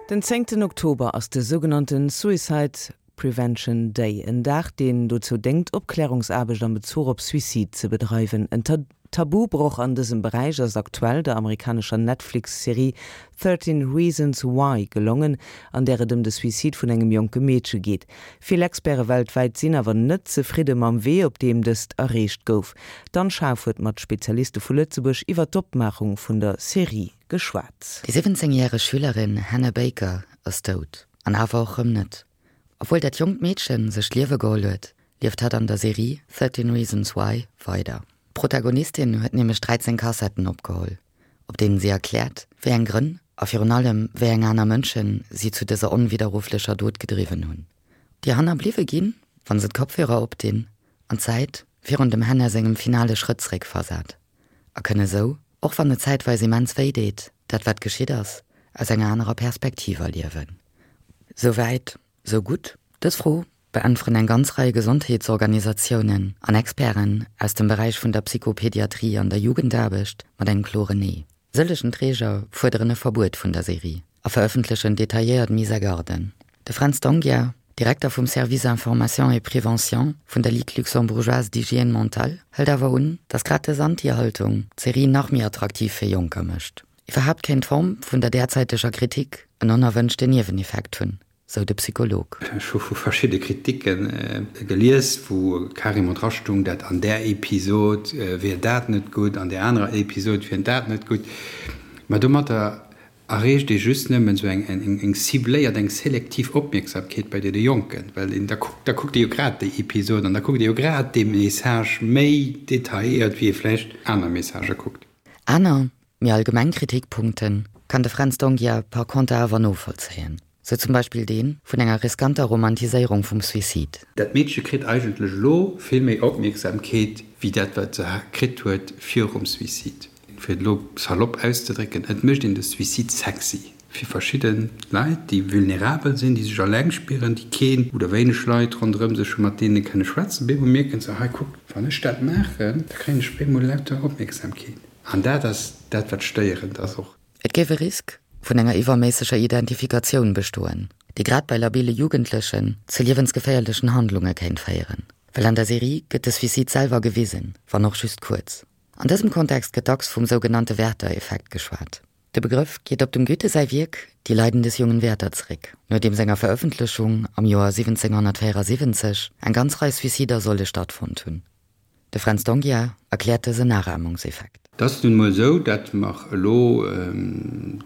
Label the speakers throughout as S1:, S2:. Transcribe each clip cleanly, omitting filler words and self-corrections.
S1: Den zéngten Oktober ass de sougenannte Suicide Prevention Day, en Dag, deen dozou déngt, Opklärungsaarbecht am Bezuch op Suicide ze bedreiwen. En Tabubroch an dësem Beräich ass aktuell der amerikanescher Netflix-Serie 13 Reasons Why gelongen, an där et ëm de Suicide vun engem jonke Meedche geet. Vill Experte weltwäit sinn awer net zefridde mam Wee, op deem dëst erreecht gouf. D'Anne Schaaf huet mat Spezialiste vu Lëtzebuerg iwwer d'Opmaachung vun der Serie geschwat.
S2: Déi 17 järeg Schülerin Hannah Baker ass dout. An awer och rëm net. Obwuel dat jonkt Meedchen sech d'Liewe geholl huet, lieft hatt an der Serie 13 Reasons Why weider. D'Protagonistin huet nämlech 13 Kassetten opgeholl, op deenen si erkläert, wéi eng Grënn a virun allem wéi eng aner Mënschen si zu dëser onwidderrufflecher Dot gedriwwen hunn. Déi Hannerbliwwe ginn, wa se d'Kopfhörer opdinn, an d'Zäit virun dem Hannah sengem finale Schrëtt zeréckversat a kënne sou, och wann et zäitweis immens wéi deet, dat wat geschitt ass, aus enger anerer Perspektiv erliewen. Sou wäit, sou gutt. Dës Fro beäntweren eng ganz Rei Gesondheetsorganisatiounen an Experten aus dem Beräich vun der Psychopediatrie an der Jugendaarbecht mat engem kloren Nee. Sëllegen Träger fuerderen e Verbuet vun der Serie a verëffentlechen detailléiert Mise-à-garden. De Fränz D'Onghia, Direkter vum Service Information et Prévention vun der Ligue luxembourgeoise d'hygiène mentale, hëlt awer un, datt grad dës Anti-Haltung d'Serie nach méi attraktiv fir Jonker mécht. Iwwerhaapt kéint d'Form vun der därzäiteger Kritik en onerwënschten Nieweneffekt hunn, sou de Psycholog.
S3: Ech hu vu verschidde Kriticke gelies, wou carrément drastung, dat an där Episod wier dat net gutt, an där anerer Episod wier dat net gutt. Mä domatter erreecht ee just nëmmen esou eng cibléiert, eng selektiv Opmierksamkeet bei deene Jonken, well een da kuckt, da kuckt ee jo grad déi Episod an da kuckt ee jo grad dee Message méi detailléiert, wéi ee vläicht aner Messagë kuckt.
S2: Aner, méi allgemeng Kritikpunkte kann de Fränz D'Onghia par conter awer novollzéien, sou zum Beispill dee vun enger riskanter Romantiséierung vum Suicide.
S3: Dat Meedche kritt eigentlech elo vill méi Opmierksamkeet wéi dat, wat se kritt huet virum Suicide. Fir et elo salopp auszedrécken, et mécht een de Suicide sexy fir verschidde Leit, déi vulnerabel sinn, déi sech alleng spieren, déi keen oder wéineg Leit ronderëm sech hunn, mat deene kënne schwätzen. Op eemol mierken se, hei kuck, wann ech dat maachen, da kréien ech op eemol lauter Opmierksamkeet. An dat ass dat, wat stéierend ass och.
S2: Et géif e Risk vun enger iwwerméisseger Identifikatioun bestoen, déi grad bei labile Jugendlechen zu liewensgeféierlechen Handlunge kéint féieren. Well an der Serie gëtt de Suicide selwer gewisen, wann och just kuerz. An dësem Kontext gëtt dacks vum sougenannte Werther-Effekt geschwat. De Begrëff geet op dem Goethe säi Wierk Die Leiden des jungen Werther zeréck, no deem senger Verëffentlechung am Joer 1774 eng ganz Rei Suicider solle stattfonnt hunn. De Fränz D'Onghia erkläert dësen Nachahmungseffekt.
S3: Et ass nun emol esou, datt mer elo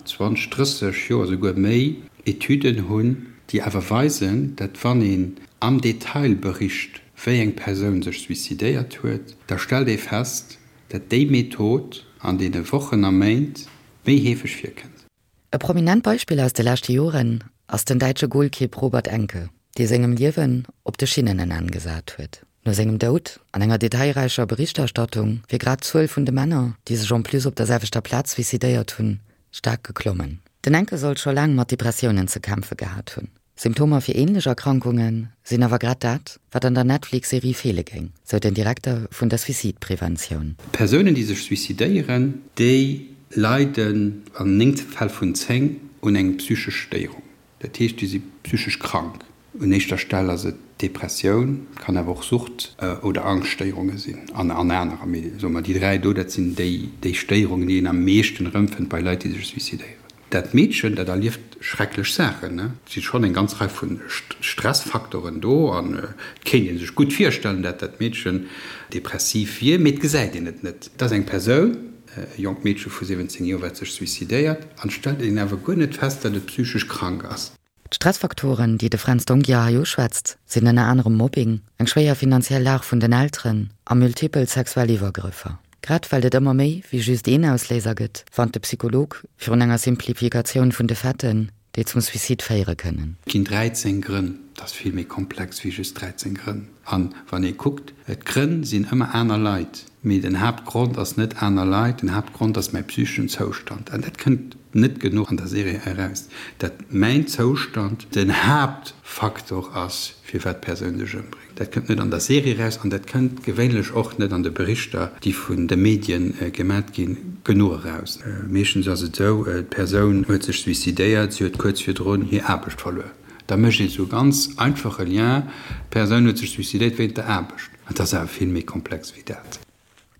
S3: 20, 30 Joer, esouguer méi, Etüden hunn, déi awer weisen, datt wann een am Detail bericht, wéi eng Persoun sech suicidéiert huet, da stellt ee fest, dat déi Method an deene Wochen a Méint méi heefeg virkënnt.
S2: E prominent Beispill aus de leschte Joren ass den däitsche Golkipp Robert Enke, dee sengem Liewen op de Schinnen en Enn gesat huet. No sengem Doud an enger detailräicher Berichterstattung wier grad d'Zuel vun de Männer, déi sech en plus op der selwechter Plaz suicidéiert hunn, staark geklommen. Den Enke soll scho laang mat Depressiounen ze kämpfe gehat hunn. Symptomer fir änlech Erkrankunge sinn awer grad dat, wat an der Netflix-Serie feele géing, sou den Direkter vun der Suicide-Preventioun.
S3: Persounen, déi sech suicidéieren, déi leiden an 9 Fäll vun 10 un eng psychesch Stéierung. Dat heescht, déi si psychesch krank. Un éischter Stell ass et d'Depressioun, kann awer och Sucht oder Angschtstéierunge sinn an anerer. Mee soe mer, déi 3 do, dat sinn déi Stéierungen, déi een am meeschten erëmfënnt bei Leit, déi sech suicidéieren. Dat Meedchen, dat erlieft schrecklech Saachen. Et si schonn eng ganz Rei vu Stressfaktoren do an et kéint ee sech gutt virstellen, dat dat Meedchen depressiv wier, mee et gesäit een et net. Et ass eng Persoun, e jonkt Meedche vu 17 Joer, wat sech suicidéiert an et stellt een awer guer net fest, dat et psychesch krank ass.
S2: D'Stressfaktoren, déi de Fränz D'Onghia hei uschwätzt, sinn ënner anerem Mobbing, eng schwéier finanziell Lag vun den Elteren a multipel sexuell Iwwergrëffer. Grad well et ëmmer méi wéi just een Ausléiser gëtt, warnt de Psycholog virun enger Simplifikatioun vun de Faiten, déi zum Suicide féiere kënnen.
S3: Et ginn 13 Grënn. Et ass vill méi komplex wéi just 13 Grënn. An wann ee kuckt, d'Grënn sinn ëmmer aner Leit, mee den Haaptgrond ass net aner Leit, den Haaptgrond ass mäi psycheschen Zoustand. An dat kënnt net genuch an der Serie eraus, dat mäin Zoustand den Haaptfaktor ass, firwat d'Persoun sech ëmbréngt. Dat kënnt net an der Serie eraus an dat kënnt gewéinlech och net an de Berichter, déi vun de Medien gemat ginn, genuch eraus. Meeschtens ass et esou, d'Persoun huet sech suicidéiert, si huet kuerz virdrun hir Aarbecht verluer. Da mécht een esou e ganz einfache Lien, d'Persoun huet sech suicidéiert wéint der Aarbecht. Et ass awer vill méi komplex wéi dat.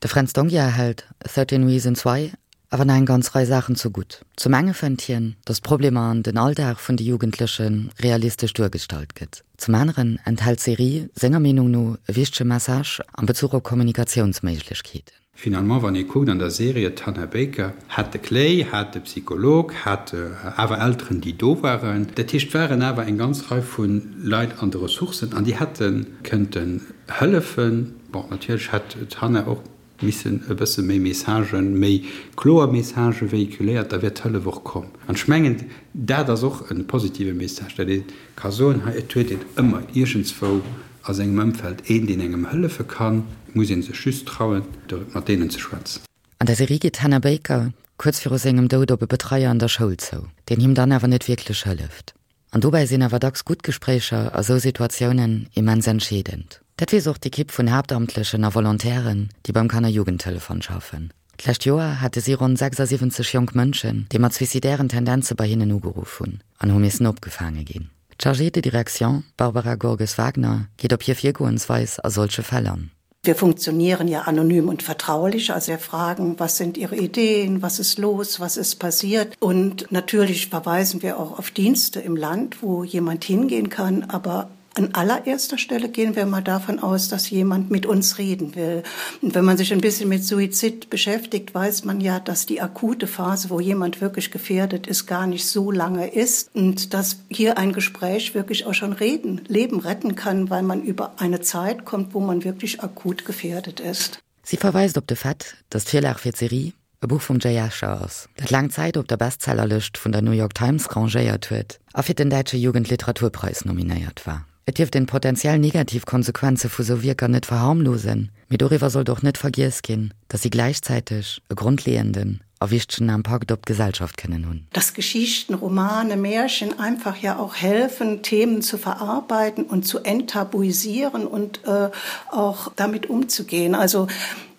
S2: De Fränz D'Onghia hält 13 Reasons Why awer nach eng ganz Rei Saachen zu gutt. Zum enge fënnt hien, datt d'Problemer an den Alldag vun de Jugendleche realistesch duergestallt gëtt. Zum aneren enthält d'Serie senger Meenung no e wichtege Message am Bezuch op Kommunikatiounsméiglechkeeten.
S3: Finalement, wann ee kuckt an der Serie, d'Hannah Baker hat de Clay, hat de Psycholog, hat awer Elteren, déi do waren. Dat heescht, et waren awer eng ganz Rei vu Leit an de Ressourcen an déi hätte kënnten hëllefen. Bon, natierlech hätt d'Hannah och missen e bësse méi Messagen, méi kloer Messagë véhiculéiert, da wär d'Hëllef och komm. An ech mengen, dat ass och e positive Message, datt ee ka soen, hei, et huet een ëmmer iergendswou a sengem Ëmfeld een, deen engem hëllefe kann. Et muss ee sech just trauen, mat deenen ze schwätzen.
S2: An der Serie geet d'Hannah Baker kuerz viru sengem Doud op e Betreier an der Schoul zou, deen him dann awer net wierklech hëlleft. An dobäi sinn awer dacks gutt Gespréicher a sou Situatiounen immens entscheedend. Dat weess och d'Ekipp vun Haaptamtlechen a Volontairen, déi beim Kannerjugendtelefon schaffen. D'lescht Joer hate si ronn 76 jonk Mënschen, déi mat suicidairen Tendenze bei hinnen ugeruff hunn an hu missen opgefaange ginn. D'Chargée de direction Barbara Gorges-Wagner geet op hir Virgoensweis a solche Fäll an.
S4: Wir funktionieren ja anonym und vertraulich, also wir fragen, was sind Ihre Ideen, was ist los, was ist passiert. Und natürlich verweisen wir auch auf Dienste im Land, wo jemand hingehen kann, aber an allererster Stelle gehen wir mal davon aus, dass jemand mit uns reden will. Und wenn man sich ein bisschen mit Suizid beschäftigt, weiß man ja, dass die akute Phase, wo jemand wirklich gefährdet ist, gar nicht so lange ist und dass hier ein Gespräch wirklich auch schon reden, Leben retten kann, weil man über eine Zeit kommt, wo man wirklich akut gefährdet ist.
S2: Sie verweist op de Fait, datt d'Virlag fir d'Serie e Buch vum Jay Asher ass, dat laang Zäit op der Bestsellerlëscht vun der New York Times rangéiert huet a fir den däitsche Jugendliteraturpreis nominéiert war. Et dierft een d'potenziell negativ Konsequenze vu sou Wierker net verharmlosen, mee doriwwer sollt och net vergiess ginn, datt si gläichzäiteg e grondleeënden a wichtegen Impakt op d'Gesellschaft kënnen hunn.
S4: Dass Geschichten, Romane, Märchen einfach ja auch helfen, Themen zu verarbeiten und zu enttabuisieren und auch damit umzugehen. Also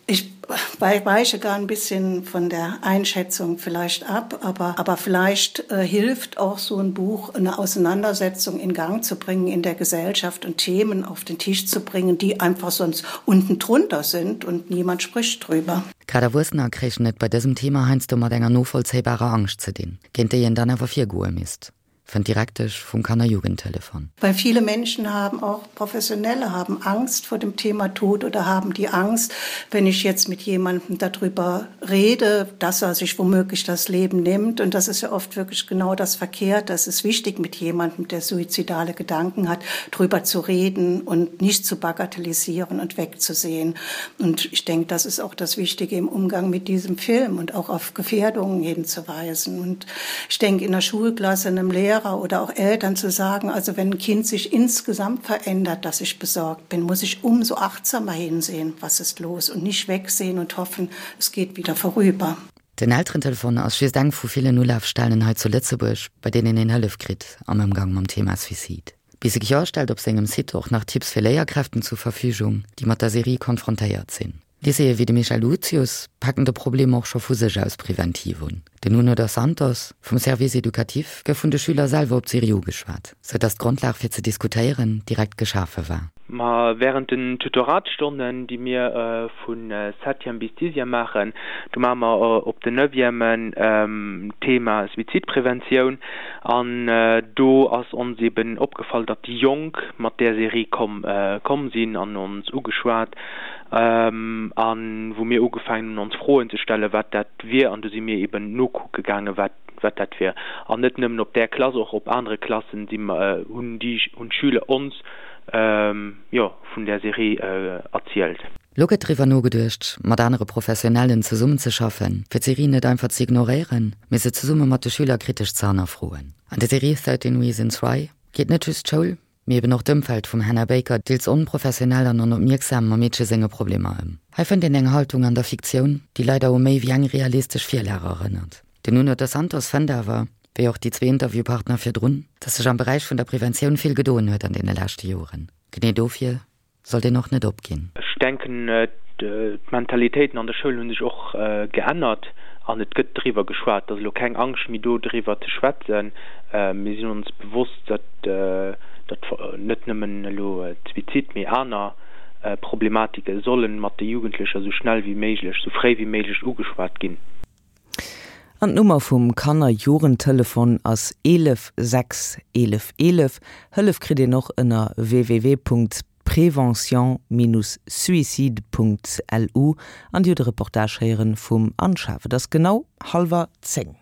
S4: ich weiche gar ein bisschen von der Einschätzung vielleicht ab, aber, aber vielleicht äh, hilft auch so ein Buch, eine Auseinandersetzung in Gang zu bringen in der Gesellschaft und Themen auf den Tisch zu bringen, die einfach sonst unten drunter sind und niemand spricht drüber.
S2: Grad Erwuessener kréichen et bei dësem Thema heiansdo mat enger novollzéibarer Angscht ze dinn, géint déi een dann awer virgoe misst, fënnt d'Direktesch vum Kannerjugendtelefon.
S4: Weil viele Menschen haben, auch Professionelle haben Angst vor dem Thema Tod oder haben die Angst, wenn ich jetzt mit jemandem darüber rede, dass er sich womöglich das Leben nimmt. Und das ist ja oft wirklich genau das Verkehrte. Es ist wichtig, mit jemandem, der suizidale Gedanken hat, darüber zu reden und nicht zu bagatellisieren und wegzusehen. Und ich denke, das ist auch das Wichtige im Umgang mit diesem Film und auch auf Gefährdungen hinzuweisen. Und ich denke, in der Schulklasse einem Lehrer oder auch Eltern zu sagen, also wenn ein Kind sich insgesamt verändert, dass ich besorgt bin, muss ich umso achtsamer hinsehen, was ist los und nicht wegsehen und hoffen, es geht wieder vorüber.
S2: Den Elterentelefon ass just eng vu villen Ulafstellen hei zu Lëtzebuerg, bei deenen een Hëllef kritt am Ëmgang mam Thema Suicide. Bise stellt op sengem Site och nach Tipps fir Léierkräften zur Verfügung, déi mat der Serie konfrontéiert sinn. Lycéeë wéi de Michel Lucius packen de Problem och scho vu sech aus preventiv un. Den Nuno dos Santos vum Service éducatif gouf vun de Schüler selwer op d'Serie ugeschwat, sou datt d'Grondlag fir ze diskutéieren direkt geschafe war.
S5: Ma während den Tutoratsstonnen, déi mir vu Septième bis Dixième maachen, do maache mer op den Neuvièmen d'Thema Suizidpreventioun an do ass ons eben opgefall, datt déi Jonk mat där Serie komm komm sinn an ons ugeschwat An wou mir ugefaangen hunn ons Froen ze stellen, wat dat wier, an du si mir eben nokucke gaangen, wat wat dat wier. An net nëmmen op där Klass, och op anere Klassen si mer, hunn déi, hunn d'Schüler ons, jo, vun där Serie erzielt.
S2: Lo gëtt driwwer nogeduecht, mat anere Professionellen zesummenzeschaffen, fir d'Serie net einfach ze ignoréieren, mee se zesumme mat de Schüler kritesch ze hannerfroen. An der Serie 13 Reasons Why geet net just d'Schoul, Mee eben och d'Ëmfeld vum Hannah Baker, deels onprofessionell an onopmierksam mam Meedche senge Problemer ëm. Hei fënnt een eng Haltung an der Fiktioun, déi leider u méi wéi eng realistesch Virlag erënnert. Den Nuno dos Santos fënnt awer, wéi och déi zwee Interviewpartner virdrun, datt sech am Beräich vun der Preventioun vill gedoen huet an deene leschte Joren. Genee dofir sollt een och net opginn.
S5: Ech denken, d'Mentalitéiten an der Schoul hu sech och geännert an et gëtt driwwer geschwat. Et ass elo keng Angscht méi do, driwwer ze schwätzen. Mir sinn ons bewosst, datt net nëmmen elo d'Suizid, mee aner Problematike solle mat de Jugendlecher esou schnell wéi méiglech, esou fréi wéi méiglech ugeschwat ginn.
S1: An d'Nummer vum Kanner-Jugendtelefon ass 11 6 11 11. Hëllef kritt een och ënner www.prevention-suicide.lu. An Dir hutt e Reportage héieren vum Anne Schaaf. Et ass genau hallwer 10.